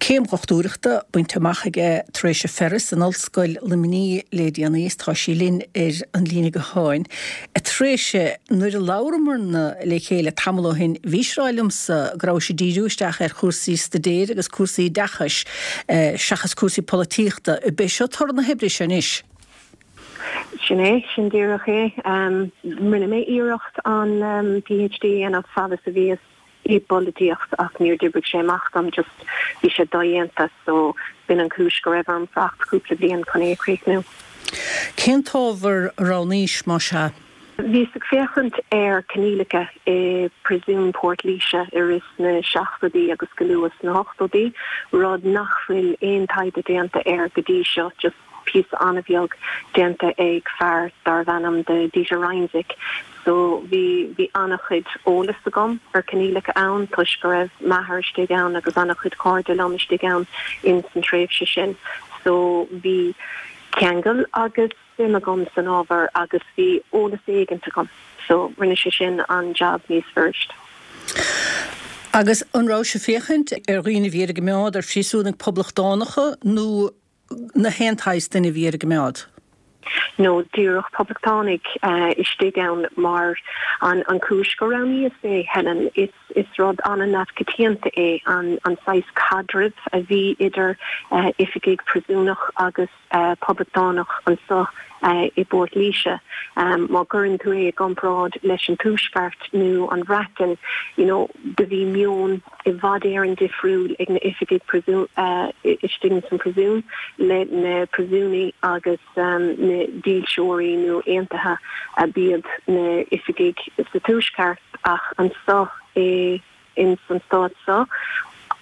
Céim dhochtúireachta bainte amach aige Treasa Ferris in Ollscoil Luimnigh le déanaí is tá sí linn ar an líne gutháin. A Threasa, nuair a labhramarna le chéile tamall ó shin, bhís ag rá liomsa go rabhais ag díriú isteach ar chúrsaí staidéir agus cúrsaí oideachais seachas cúrsaí polaitíochta. Ab é seo toradh na hoibre seo anois? Sin é, sin díreach é. Rinne mé iarracht an PhD a dhéanamh fad is a bhíos i bpolaitíocht ach níor d'oibrigh sé amach dom, just bhí sé dodhéanta so b'in an chúis go raibh orm fanacht cúpla bliain chun é a chríochnú. Cén t-ábhar a roghnaís, más ea? Bhíos ag féachaint ar coinníollacha i bPríosún Port Laoise i rith na seachtóidí agus go luath sna hochtóidí, rud nach bhfuil aon taighde déanta air go dtí seo, just píosa an-bheag déanta ag fear darbh ainm do Dieter Reimsig. So bhí, bhí an-chuid eolas agam ar coinníollacha ann toisc go raibh m'athair istigh ann agus an-chuid cairde liom istigh ann ins an tréimhse sin. So bhí ceangal agus suim agam san ábhar agus bhí eolas éigint agam. So rinne sé sin an jab níos fuirist. Agus an rabhais ag féachaint ar dhaoine a bhí ar a gcoimeád, ar phríosúnaigh poblachtánacha nó na haon tsaghas duine a bhí ar a gcoimeád. No díreach poblachtánaigh istigh ann mar an chúis gur roghnaíos é, Helen, is is rud an-neamhchoitianta é an an saghas caidrimh a bhí idir oifigigh príosúnach agus poblachtánach anso i bPort Laoise. Má chuireann tú é i gcomparáid leis an Tuaisceart nó an Bhreatain, you know, do bhí meon i bhfad Éireann difriúil ag na oifigigh istigh ins an príosún le na príosúnaigh agus na dílseoirí nó aontaithe a b'iad na oifigigh sa Tuaisceart ach anso i ins an stát so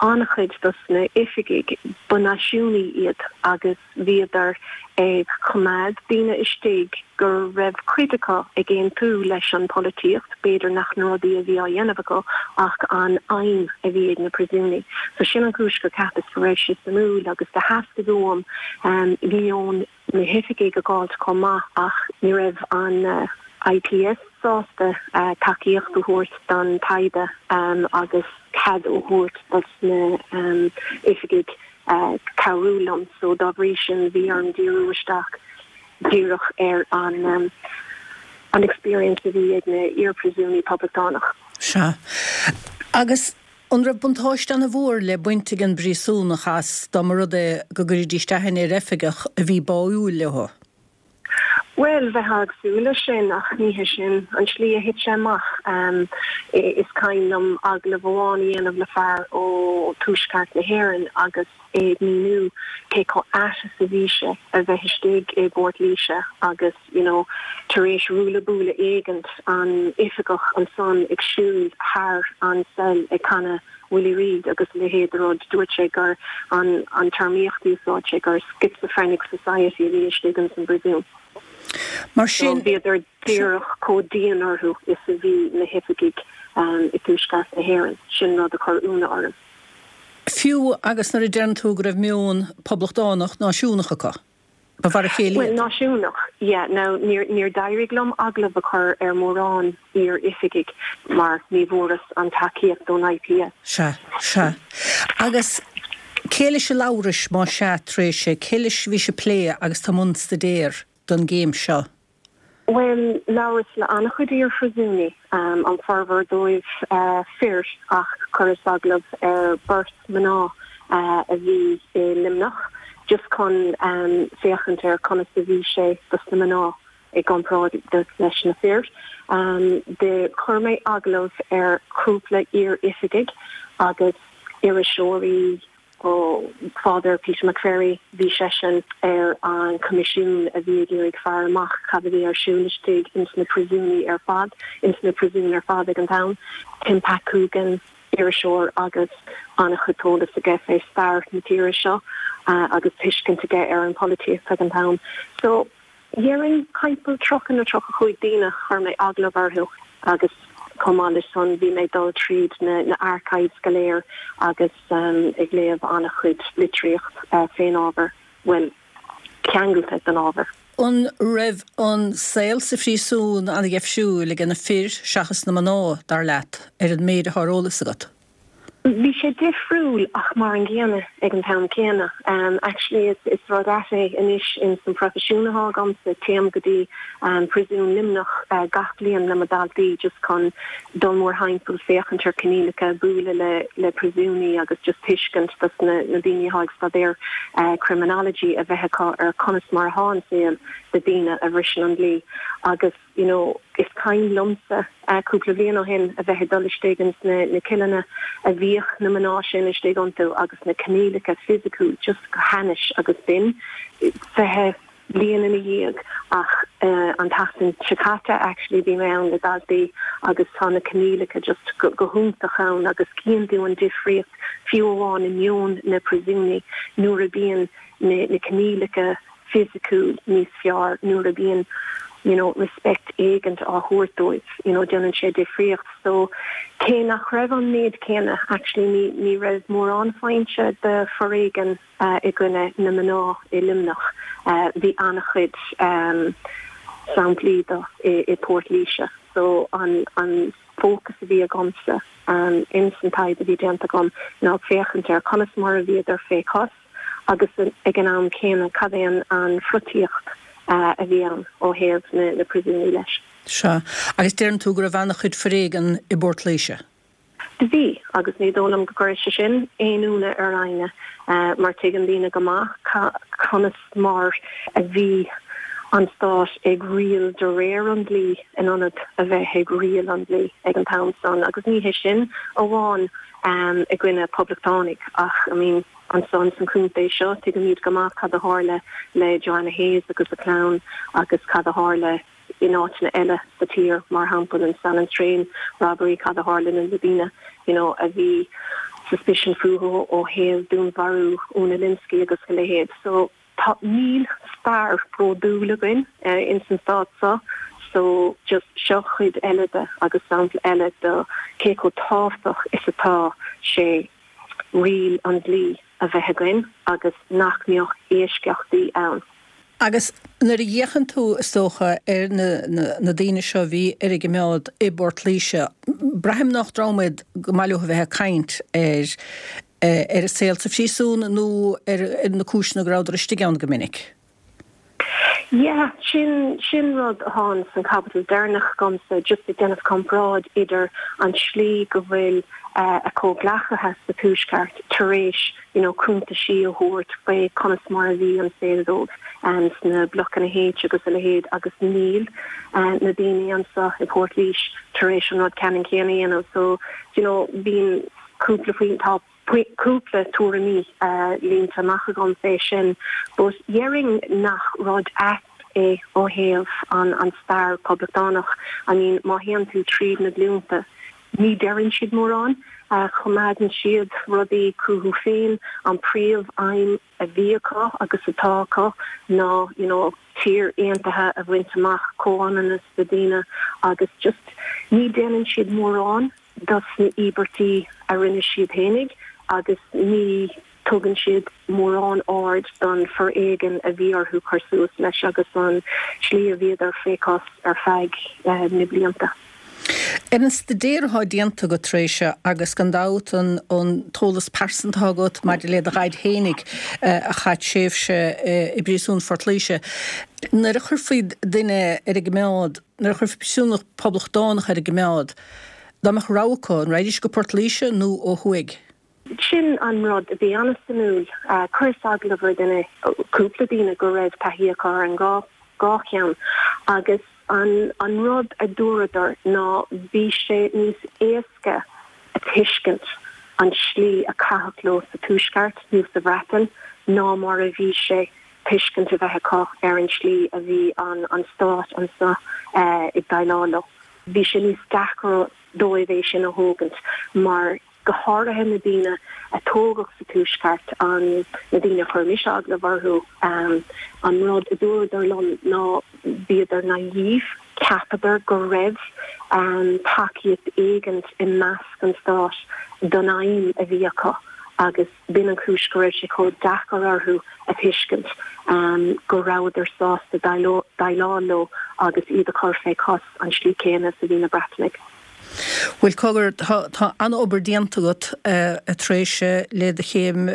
an-chuid dos na oifigigh ba náisiúnaigh iad agus bhíodar ag coimeád daoine istigh go raibh cuid acu ag aontú leis an polaitíocht, b'fhéidir nach na rudaí a bhí á dhéanamh acu ach an aidhm a bhí ag na príosúnaigh. So sin an chúis gur cheapas go raibh sé suimiúil agus do theastaigh uaim meon na hoifigigh a dh'fháilt chomh maith ach ní raibh an IPS sásta tacaíocht a thabhairt don taighde agus cead a thabhairt dos na oifigigh cabhrú liom so dá bhrí sin bhí orm díriú isteach díreach ar an an experience a bhí ag na iar-phríosúnaigh poblachtánach. Sea. Agus an raibh buntáiste ana-mhór le baint ag an bpríosúnach as dá mba rud é go gcuiridís aithne ar oifigeach a bhí báúil leo? Bhuel, bheifeá ag súil leis sin, ach ní hé sin an tslí a thit sé amach. Is cuimhin liom agallamh amháin a dhéanamh le fear ó Tuaisceart na hÉireann agus é ag míniú cé chomh ait is a bhí sé a bheith istigh i bPort Laoise agus, you know, tar éis ruaille buaille éigint, an oifigeach ansan ag siúl thar an cell ag canadh Willie Reid agus a leithéid de rud. Dúirt sé gur an an téarmaíocht a úsáid sé gur schizophrenic society a bhí istigh ins an bpríosún. Mar sin. So bhíodar díreach chomh dian orthu is a bhí na hoifigigh. i dTuaisceart na hÉireann. Sin rud a chuir ionadh orm. Fiú agus nuair a deireann tú go raibh meon poblachtánach náisiúnach acu, ba mhar a chéile Bhuel, náisiúnach, yeah. Now, níor, níor d'éirigh liom agallamh a chur ar mhórán iar-oifigigh mar ní bhfuaireas an tacaíocht ón IPS. Sea, sea. Agus cé leis a labhrais, más ea, tar éis, cé leis a bhís ag plé agus tú i mbun staidéir don gcéim seo? Bhuel, labhras le an-chuid iar-phríosúnaigh, an formhór dóibh fir, ach chuireas agallamh ar beirt mná a bhí i Luimneach, just chun féachaint ar conas a bhí sé dos na mná i gcomparáid leis na fir. Do chuir mé agallamh ar chúpla iar-oifigigh agus iriseoirí, Ó Father Peter McVerry, bhí seisean ar an choimisiún a bhí ag iarraidh faire amach cad a bhí ar siúl istigh ins na príosúnaí ar fad, ins na príosúin ar fad ag an t-am. Tim Pat Coogan, iriseoir agus an-chuid eolas aige fé stair na tíre seo agus tuiscint aige ar an pholaitíocht ag an t-am. So. Dhéarfainn timpeall 30 nó 35 daoine chuir mé agallamh orthu agus chomh maith leis san bhí mé ag dul tríd na archives go léir agus ag léamh an-chuid litríocht fén ábhar, bhuel, ceangailte den ábhar. An raibh an saol sa phríosún an-dheifriúil age na fir seachas na mná, dar leat, ar an méid atá ar eolas agat? Bhí sé difriúil ach mar an gcéanna ag an t-am céanna. Actually is is rud ait é anois ins an proifisiún atá agamsa, téim go dtí Príosún Luimneach gach bliain le mo daltaí just chun dul mórthimpeall, féachaint ar coinníollacha, bualadh le le príosúnaí agus just tuiscint dos na na daoine atá ag staidéar criminology a bheith acu ar conas mar atá an saol do daoine a bhriseann an dlí agus you know is cuimhin liomsa cúpla bliain ó shin a bheith ag dul istigh ins na na cilleanna a bhíodh na mná sin istigh iontu agus na coinníollacha fisiciúil just go hainnis agus b'in 20 bliain ina dhiaidh ach an tseachtain seo caite actually bhí mé ann le daltaí agus tá na coinníollacha just go go hiontach ann agus cíonn tú an difríocht fiú amháin i meon na príosúnaí nuair a bíonn na na coinníollacha fisiciúil níos fearr nuair a bíonn you know respect éigint á thabhairt dóibh you know déanann sé difríocht so cé nach raibh an méid céanna actually ní ní raibh mórán foinse de foréigean i gcoinne na mná i Luimneach bhí an-chuid samplaí de i i Port Laoise so an an fócas a bhí agamsa ins an taighde a bhí déanta agam ná féachaint ar conas mar a bhíodar fé chos agus ag an am céanna cad é an pholaitíocht a bhí ann ó thaobh na príosúnaí leis. Sea. Agus deireann tú go raibh an-chuid foréigean i bPort Laoise. Do bhí, agus ní dóigh liom go gcuirfidh sé sin aon ionadh ar éinne mar tuigeann daoine go maith conas mar a bhí an stát ag riail de réir an dlí in ionad a bheith ag riail an dlí ag an t-am san agus ní hé sin amháin i gcoinne poblachtánaigh ach I mean ansan san chontae seo tuigimid go maith cad a tharla le Joanna Hayes agus a clann agus cad a tharla in áiteanna eile sa tír mar shampla an Sallins Train robbery cad a tharla na daoine you know a bhí suspicion fúthu ó thaobh dúnmharú Úna Lynskey agus a leithéid so Tá, níl stair bródúil againn ins an stát seo so just seo cuid eile de agus sampla eile de cé chomh tábhachtach is atá sé riail an dlí a bheith againn agus nach mbeadh eisceachtaí ann. Agus nuair a fhéachann tú, is dócha, ar na, na daoine seo a bhí ar a gcimeád i bPort Laoise, braithim nach dream iad go maith leo a bheith ag caint ar ar a saol sa phríosún nó ar na cúiseanna go rabhadar istigh ann go minic. Yeah, sin, sin rud atá san chaibidil deireanach agamsa, just ag déanamh comparáid idir an tslí go bhfuil a comhghleacaithe sa Tuaisceart tar éis you know cuntaisí a thabhairt faoi conas mar a bhí an saol dóibh sna blocanna H agus a leithéid agus níl na daoine anseo i Port Laoise tar éis an rud ceannann céanna a dhéanamh so you know bíonn cúpla faoin, tá cúpla tuairimí línte amach agam fé sin but dhéarfainn nach rud ait é ó thaobh an an stair poblachtánach. I mean má théann tú tríd na glúnta ní deireann siad mórán, coimeádann siad rudaí chucu féin, an príomh aidhm a bhí acu agus atá acu ná you know tír aontaithe a bhaint amach, comhionannas do daoine agus just ní déanann siad mórán. dos na íobairtí a rinne siad fhéinig agus ní tugann siad mórán aird don foréigean a bhí orthu cur suas leis agus an tslí a bhíodar fé chos ar feadh na blianta. Ar an staidéar atá déanta agat Treasa agus gan dabht an t-eolas pearsanta atá agat maidir le do dhaid fhéinig a chaith tréimhse i bpríosún Phort Laoise, nuair a chuirfí duine ar an gcoimeád, nuair a chuirfí príosúnach poblachtánach ar an gcoimeád, dá mbeadh rogha acu, an raghaidís go Port Laoise nó ó thuaidh? Sin an rud a bhí an-suimiúil. Chuireas agallamh ar duine, cúpla daoine go raibh taithí acu ar an dhá cheann agus an an rud a dúradar ná bhí sé níos éasca a tuiscint an tslí a caitheadh leo sa Tuaisceart nó sa Bhreatain ná mar a bhí sé tuiscint a bheith acu ar an tslí a bhí an an stát anso ag déileáil leo. Bhí sé níos deacra dóibh é sin a thógaint mar go háirithe na daoine a tógadh sa Tuaisceart, an, na daoine a chuir mise agallamh orthu, an rud a dúradar liom ná bhíodar naive, cheapadar go raibh tacaíocht éigint i measc an stáit don aidhm a bhí acu agus b'in an chúis go raibh sé chomh deacair orthu a thuiscint go rabhadar sásta déileáil leo agus iad a chur fé chos an slí céanna is a bhí na Breatanaigh. Bhuel, cogar, tá an-obair déanta agat, a Threasa, le do chéim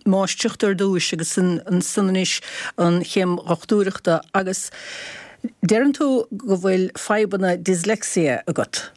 máistreachta ar dtúis agus ansan anois an chéim dhochtúireachta agus deireann tú go bhfuil fadhbanna dyslexia agat.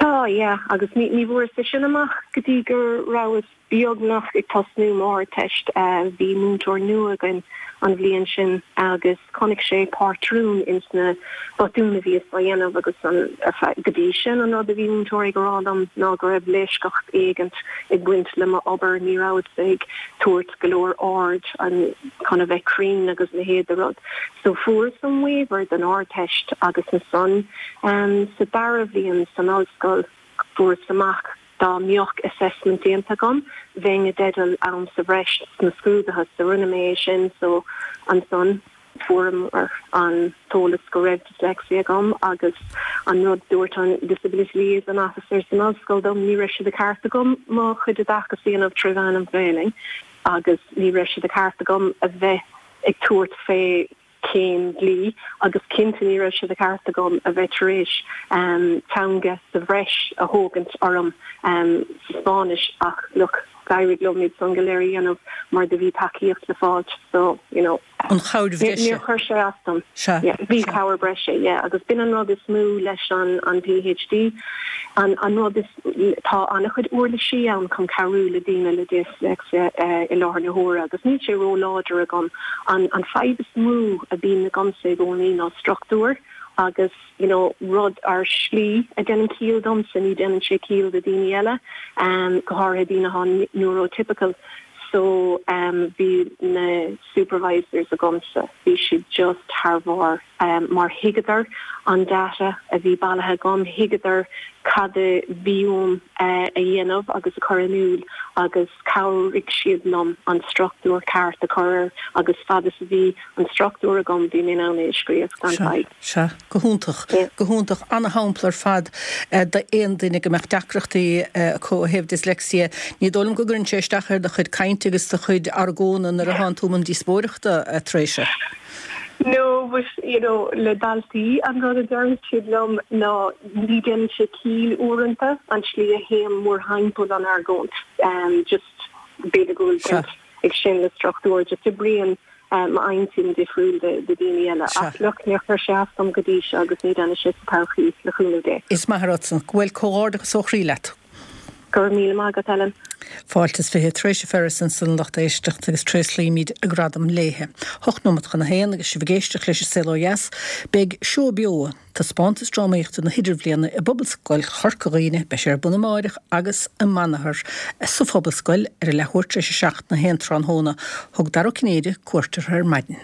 Tá, yeah, agus ní bhfuaireas é sin amach go dtí go rabhas beagnach ag tosnú m'Ardteist. Bhí múinteoir nua againn an bhliain sin agus chonaic sé pátrún ins na botúin a bhíos á dhéanamh agus an, ar feadh, go dtí sin an rud a bhí múinteoirí ag rá liom ná go raibh leisceacht éigint ag baint le m'obair, ní rabhas ag tabhairt go leor aird an, chun a bheith cruinn agus a leithéid de rud. So fuaireas an waiver don Ardteist agus ansan sa dara bhliain san ollscoil fuaireas amach Dá mbeadh assessment déanta agam, bheinn i dteideal am sa bhreis sna scrúduithe, so rinne mé é sin, so ansan fuaireamar an t-eolas go raibh dyslexia agam agus an rud dúirt an disability liaison officer san ollscoil dom, ní raibh sé de cheart agam mo chuid oideachais a dhéanamh tré mheán an Ghaelainn agus ní raibh sé de cheart agam a bheith ag tabhairt fé céim dlí agus cinnte ní raibh sé de cheart agam a bheith tar éis teanga sa bhreis a thógaint orm sa Spáinnis ach look d'éirigh liom iad san go léir a dhéanamh mar do bhí tacaíocht le fáilt so you know An chabhair bhreise. Níor chuir sé as dom. Sea. Yeah bhí cabhair breise yeah agus b'in an rud is mó leis an an PhD an an rud is Tá an-chuid uirlisí ann chun cabhrú le daoine le disléicse i láthair na huaire agus níl sé ró-láidir agam. An fadhb is mó a bhíonn agamsa i gcónaí ná struchtúr agus you know rud ar shlí a dhéanann ciall domsa, ní dhéanann sé ciall do daoine eile, go háirithe daoine atá neurotypical. So bhí na supervisors agamsa, bhí siad just thar bharr. mar thuigeadar an data a bhí bailithe agam, thuigeadar cad a bhí uaim a dhéanamh agus a chur in iúl agus chabhraigh siad liom an struchtúr ceart a chur air agus fad is a bhí an struchtúr agam bhí mé in ann é a scríobh gan fadhb. Sea, go hiontach, go hiontach. Ana-shampla ar fad d'aon duine go mbeadh deacrachtaí acu ó thaobh dyslexia. Ní dóigh liom go gcuireann sé isteach ar do chuid cainte agus do chuid argóna nuair a thánn tú i mbun díospóireachta, a Threasa. No, but, you know, le daltaí, an rud a deireann siad liom ná ní déanann sé ciall uaireanta an tslí a théim mórthimpeall an argóint. Just, b'fhéidir go bhfuil baint ag sin le struchtúr, just oibríonn m'intinn difriúil de daoine eile. Ach look, níor chuir sé as dom go dtí seo agus ní déanfaidh sé sa todhchaí, le cúnamh Dé. Is maith an rud san. Bhuel, comhghairdeachas ó chroí leat. Go raibh míle maith agat, Ellen. Fáilte is 20 Treasa Ferris ansan a lucht éisteachta agus tréaslaímid a gradam léithe. Hocht nóimeat chun a haon agus sibh ag éisteacht leis an Saol Ó Dheas. Beidh Seó Beo, taispeántas drámaíochta na hIdirbhliana i bPobalscoil Chorca Dhuibhne, beidh sé ar bun amáireach agus amanathar sa Phobalscoil ar a leathuair tar éis a 7 nó 1 tráthnóna. Thug Dara Ó Cinnéide cuairt orthu ar maidin.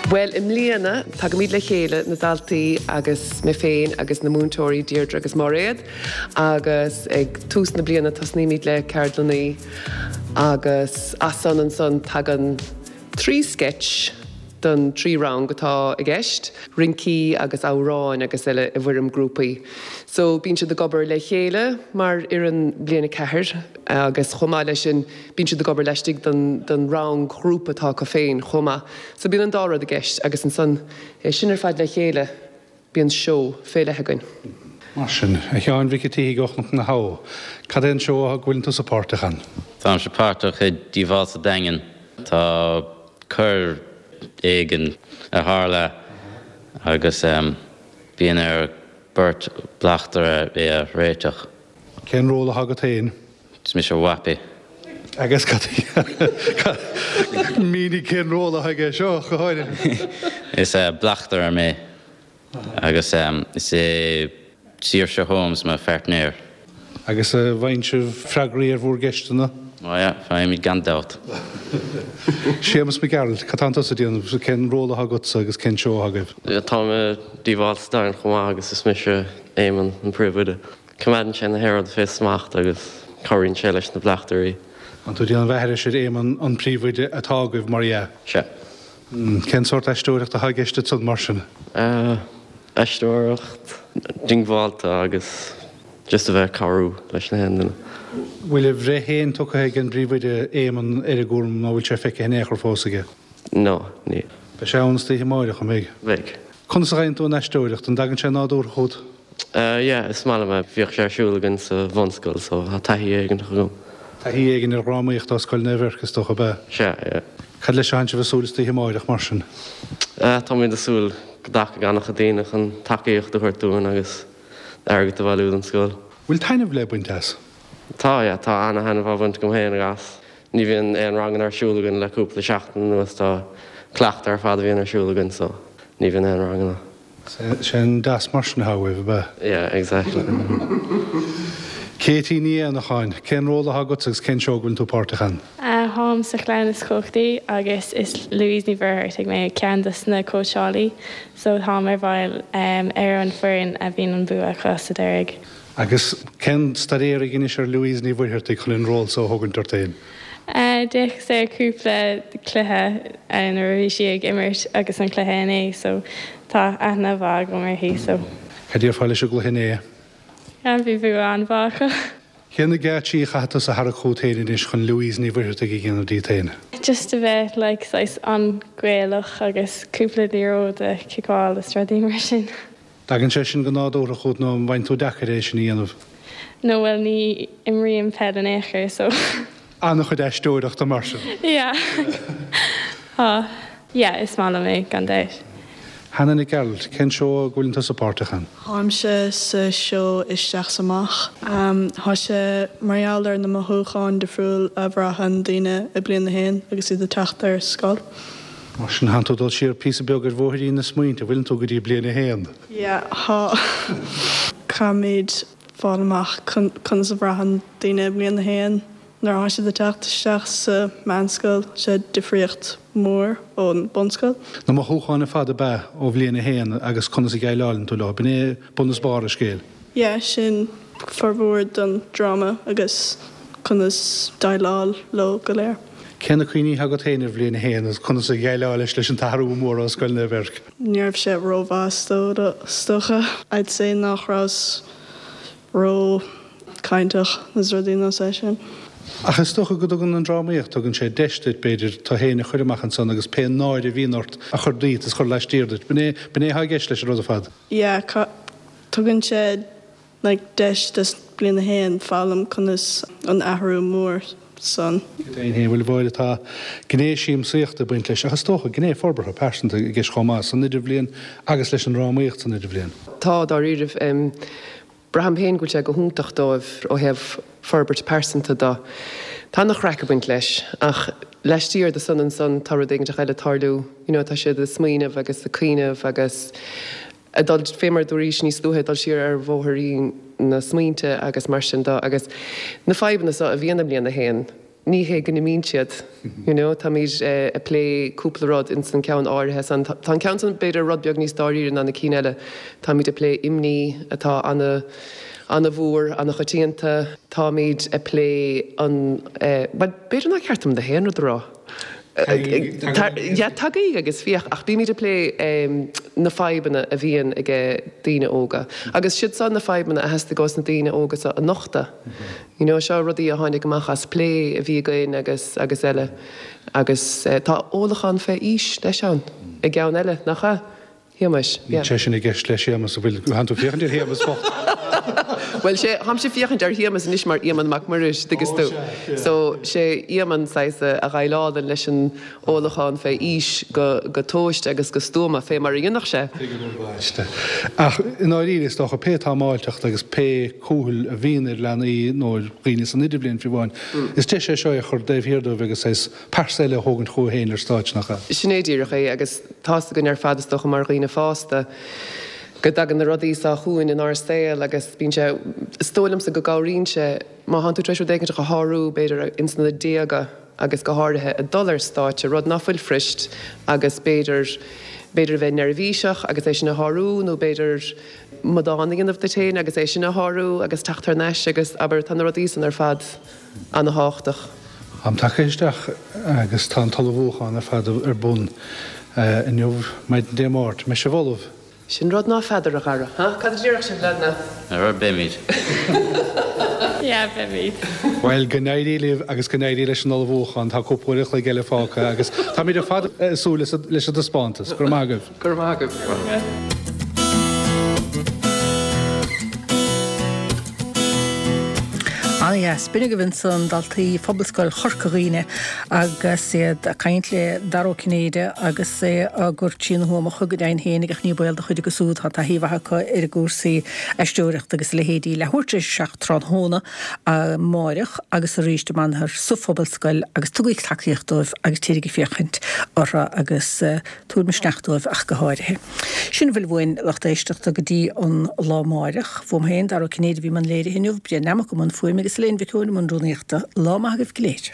Bhuel, i mbliana, tagaimid le chéile, na daltaí agus mé féin agus na múinteoirí Deirdre agus Máiréad, agus ag tús na bliana tosnaímid le ceardlannaí agus as san ansan tagann. 3 sketch don 3 rang atá i gceist, rincí agus amhráin agus eile i bhfoirm grúpaí. So bíonn siad ag obair le chéile mar fhoireann bliain 4 agus chomh maith leis sin bíonn siad ag obair laistigh den den rang ghrúpa atá acu féin chomh maith. So bíonn an dá rud i gceist agus ansan é sin ar fad le chéile bíonn seó fé leith againn. Mar sin, a Sheáin Mhic an tSíthigh ó Chnoc na hAbha, cad é an seó go bhfuileann tusa páirteach ann? Táimse páirteach i Díobháil sa Daingean. Tá coir éigin a tharla agus bíonn ar beirt bleachtaire é a réiteach. Cén ról atá agat féin? Is mise Wappy. Agus cad mínigh cén ról atá aige seo, go háirithe. Is bleachtaire mé agus is é Saoirse Holmes mo phairtnéir. Agus an bhfaigheann sibh freagraí ar bhúr gceisteanna? Ó yeah, faighimid gan dabht. Séamus Mac Gearailt, cad tánn tusa ag déanamh, cén ról atá agatsa agus cén seó atá agaibh? Táim i Díobháil sa Daingean chomh maith agus is mise Éamonn, an príomhoide. Coimeádann sé na haon rud fé smacht agus cabhraíonn sé leis na bleachtairí. Tánn tú ag déanamh aithris ar Éamonn, an príomhoide atá agaibh, mar dhea? Sea. Cén sórt aisteoireachta atá i gceist ansan, mar sin? Aisteoireacht diongbháilte agus just a bheith ag cabhrú leis na haon duine. Bhfuil a bhreith féin tugtha ag an bpríomhoide, Éamonn, ar an gcúram nó bhfuil sé feicthe in aon chor fós aige? No, níl. Beidh sé ann istoíche amáireach, an mbeidh? Beidh. Conas a fhaigheann tú an aisteoireacht? An dtagann sé nádúrtha chugat? Yeah, is maith liom é. Bhíodh sé ar siúl againn sa bhunscoil so tá taithí éigin agam. Taithí éigin ar dhrámaíocht ó Scoil Naomh Eirc is dócha, ab ea? Sea, yeah. Cad leis a thánn sibh ag súil istoíche amáireach mar sin? Táimid ag súil go dtagfaidh an-chuid daoine chun tacaíocht a thabhairt dúinn agus airgead a bhailiú don scoil. Bhfuil taitneamh le baint as? Tá, yeah, tá ana-thaitneamh á bhaint agam féin as. Ní bhíonn aon ranganna ar siúl againn le cúpla seachtain anuas, tá cleachtadh ar fad a bhíonn ar siúl againn so ní bhíonn aon ranganna. Sé an DAS mar sin atá uaibh, ab ea? Yeah, exactly. Katie Ní Éanacháin, cén ról atá agatsa agus cén seó go bhfuileann tú páirteach ann? Táim sa Chlann is Cumhachtaí agus is Louise Ní Mhuircheartaigh mé, ceann dos na cóitseálaí, so táim ar bhaill ar an foireann a bhíonn an bua acu sa deiridh. Agus cén staidéar a dheinis ar Louise Ní Mhuircheartaigh chun an ról so a thógaint ort féin? D'fhéachas ar cúpla cluiche nuair a bhí sí ag imirt agus an cluiche inné so tá aithne mhaith agam uirthi so. Cad déarfá leis an gcluiche inné? Yeah, bhí bua an-mhaith acu. Cé na geáitsí a chaithfidh tusa a tharrac chugat féin anois chun Louise Ní Mhuircheartaigh a dhéanamh díot féin? Just a bheith like saghas an-Ghaelach agus cúpla liathróid a chiceáil is rudaí mar sin. Tagann sé sin go nádúrtha chugat nó an bhfaigheann tú deacair é sin a dhéanamh? No bhuel ní imrím peil in aon chor so. An-chuid aisteoireachta mar sin. Yeah. Tá. Yeah is maith liom é gan dabht. Hannah Nic Gearailt, cén seó a bhfuileann tusa páirteach ann? Táimse sa seó Isteach 's Amach. Tá sé mar gheall ar na mothúcháin difriúil a bhraitheann daoine i bliain a haon agus iad ag teacht ar scoil. Mar sin, thánn tú ag dul siar píosa beag ar bhóithrín na smaointe, bhfuileann tú go dtí bliain a haon? Yeah, tá. Caithfimid fáil amach conas a bhraitheann daoine i mbliain a haon nuair atá siad ag teacht isteach sa meánscoil, sé difríocht mhór ón bunscoil. Na mothúcháin ar fad ab ea ó bhliain a haon agus conas a dhéileáileann tú leo, b'in é bun is barr an scéil. Yeah, sin formhór don dráma agus conas déileáil leo go léir. Cé na cuimhní atá agat féin ar bhliain a haon agus conas a dhéileáilis leis an t-athrú mór ó Scoil Naomh Eirc? Ní raibh sé rómhaith is dócha. I'd say nach rabhas ró cainteach is rudaí nós é sin. Ach is dócha go dtugann an drámaíocht, tugann sé deis duit, b'fhéidir, tú féin a chur amach ansan agus pé náire a bhíonn ort a chur díot is a chur laistiar duit. B'in é, b'in é atá i gceist leis an rud ar fad. Yeah, tugann sé like deis do bliain a haon foghlaim conas an athrú mór san. Go deimhin féin, bhuel, tá gné siamsaíochta ag baint leis ach is dócha gné forbartha pearsanta i gceist chomh maith san idirbhliain agus leis an drámaíocht san idirbhliain. Tá, dáiríribh. Braithim féin go bhfuil sé go hiontach dóibh ó thaobh forbairt pearsanta de. Tá ana-chraic ag baint leis ach laistiar de san ansan tá rud éiginteach eile ag tarlú, you know, tá siad ag smaoineamh agus ag cuimhneamh agus ag dul, fé mar a dúraís níos luaithe, ag dul siar ar bhóithrín na smaointe agus mar sin de agus na fadhbanna so a bhíonn i mbliain a haon, ní hé go n-imíonn siad, you know, táimid ag plé cúpla rud ins an ceann áirithe san, tá an ceann san b'fhéidir rud beag níos dáiríre ná na cinn eile, táimid ag plé imní atá ana, ana-mhór, ana-choitianta, táimid ag plé an, bhuel b'fhéidir nár cheart dom na haon rud a rá. Yeah, tagaigí agus féach, ach bímid ag plé na fadhbanna a bhíonn age daoine óga. Agus siad seo na fadhbanna a theastaigh ós na daoine óga seo a nochtadh. You know, seo rudaí a tháinig amach as plé a bhí againn agus agus eile. Agus tá ólachán fé aois leis ann i gceann eile, nach ea? Shéamais, yeah. Níl sé sin i gceist le Séamas, an bhfuil? Tánn tú ag féachaint ar Shéamas bocht. Bhuel, sé, tháimse ag féachaint ar Shéamas anois mar Éamonn Mac Muiris, dtuigeas tú. So, sé Éamonn saghas a dhéileálann leis an ólachán fé aois go, go tomhaiste agus go stuama, fé mar a dhéanfadh sé. Tuigim ar bhaiste. Ach i ndáiríre, is dócha, pé támáilteacht agus pé cúthail a bhíonn ar leanaí nó ar dhaoine san idirbhliain fiú amháin, is deis é seo é a chur taobh thiar dóibh agus saghas pearsa eile a thógaint chucu féin ar stáitse, nach ea? Sin é díreach é, agus tá's againn ar fad, is dócha, mar dhaoine fásta, go dtagann na rudaí seo chugainn inár saol agus bíonn sé, is dóigh liomsa go gcabhraíonn sé, má thánn tú tar éis rud éigin a shárú, b'fhéidir, ins na déaga agus go háirithe ag dul ar stáitse, rud ná fuil fuirist agus b'fhéidir, b'fhéidir a bheith neirbhíseach agus é sin a shárú nó b'fhéidir amadán a dhéanamh duit féin agus é sin a shárú agus teacht thar n-ais agus, abair, tá na rudaí san ar fad. ana-thábhachtach. Am tagtha isteach agus tá an t-ullmhúchán ar fad ar bun inniu, maidin Dé Máirt. Mbeidh sibh ullamh? Sin rud ná feadar, a Dhara. Ha? Cad a déarfadh sibh, leaideanna? Ar beimid. Yeah, beimid. Bhuel, go n-éirí libh agus go n-éirí leis an ullmhúchán. Tá cúpla uair an chloig eile fágtha agus táimid ar fad ag súil leis an taispeántas. Go raibh maith agaibh. Go raibh maith agaibh. Ana-dheas. B'in agaibh ansan daltaí Phobalscoil Chorca Dhuibhne agus iad ag caint le Dara Ó Cinnéide agus é á gcur trína thuamacha go deimhin féinig ach ní baol do chuid acu siúd, tá taithí mhaith acu ar a gcúrsaí aisteoireachta agus a leithéidí. Leathuair tar éis a 7 tráthnóna amáireach agus arís amanthair sa Phobalscoil agus tugaigí tacaíocht dóibh agus téirigí ag féachaint orthu agus Tabhair misneach dóibh ach go háirithe. Sin a bhfuil uainn, lucht éisteachta, go dtí an lá amáireach. Uaim féin, Dara Ó Cinnéide, a bhí i mbun léirithe inniu, Brian Nammock i mbun fuaime agus Elaine Mhic Eoin i mbun rúnaíochta. Lá maith agaibh go léir.